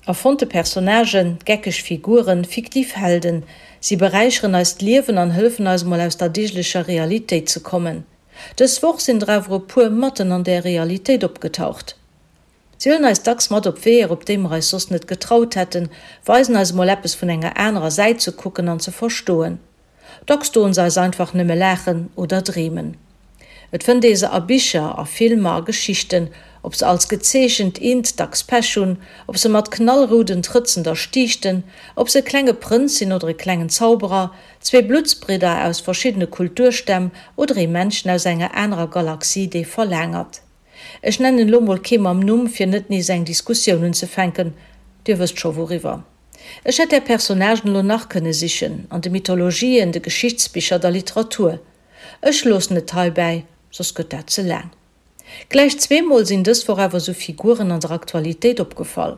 Erfonnte Personnagen, geckeg Figuren, fiktiv Helden, si beräicheren eist Liewen an hëllefen eis mol aus der deeglecher Realitéit ze kommen. Dës Woch sinn der awer e puer matten an där Realitéit opgetaucht. Si huelen eis dacks mat op Weeër, op déi mer eis soss net getraut hätten, weisen eis emol eppes vun enger anerer Säit ze kucken an ze verstoen. Dacks doen se eis einfach nëmme laachen oder dreemen. Et fënnt ee se a Bicher, a Filmer, a Geschichten, ob se als gezeechent Int dacks Pech hunn, ob se mat knallrouden Trëtzen der stiichten, ob se e klenge Prënz sinn oder e klengen Zauberer, zwee Bluttsbridder aus verschiddene Kulturstämm oder ee Männchen aus enger anerer Galaxie, dee verlaangert. Ech nennen elo mol kee mam Numm, fir net nees eng Diskussioun unzefänken, Dir wësst scho wouriwwer. Ech hätt där Personnagen elo nach kënne sichen, an de Mythologien, de Geschichtsbicher, der Literatur. Ech loossen et heibäi, soss gëtt dat ze laang. Gläich zweemol sinn dës Woch awer esou Figuren an der Aktualitéit opgefall.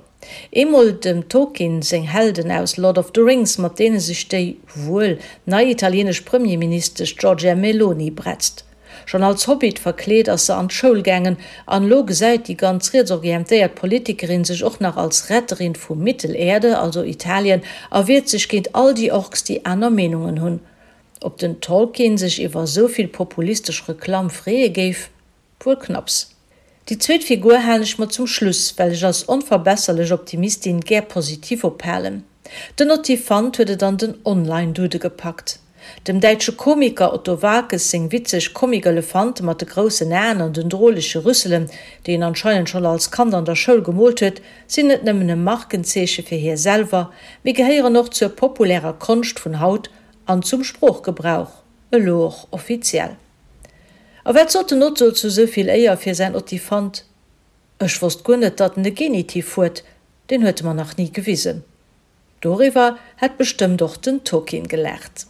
Eemol dem Tolkien seng Helden aus Lord of the Rings, mat deene sech déi, wuel, nei italienesch Premierministesch Giorgia Meloni bretzt. Schonn als Hobbit verkleet ass se an d'Schoul gaangen an elo gesäit déi ganz rietsorientéiert Politikerin sech och nach als Retterin vu Mittelerde, also Italien, a wiert sech géint all déi Orks, déi aner Meenungen hunn. Ob den Tolkien sech iwwer esou vill populistesch Reklamm freeë géif? Wuel knapps. Déi zweet Figur halen ech mer zum Schluss, well ech als onverbesserlech Optimistin gär positiv ophalen. Den Ottifant huet et an den Online-Dude gepackt. Dem däitsche Komiker Otto Waalkes seng witzeg Comic-Elefante mat de groussen Aen an den drolege Rüsselen, déi en anscheinend schonn als Kand an der Schoul gemoolt huet, sinn net nëmmen e Markenzeeche fir hie selwer, mee gehéieren och zur populärer Konscht vun haut an zum Sproochgebrauch, elo och offiziell. A wat sot den Otto zu sou vill Éier fir säin Ottifant? Ech wosst guer net, datt en e Genitiv huet, deen huet e mer nach ni gewisen. Doriwwer hätt bestëmmt och den Tolkien gelaacht.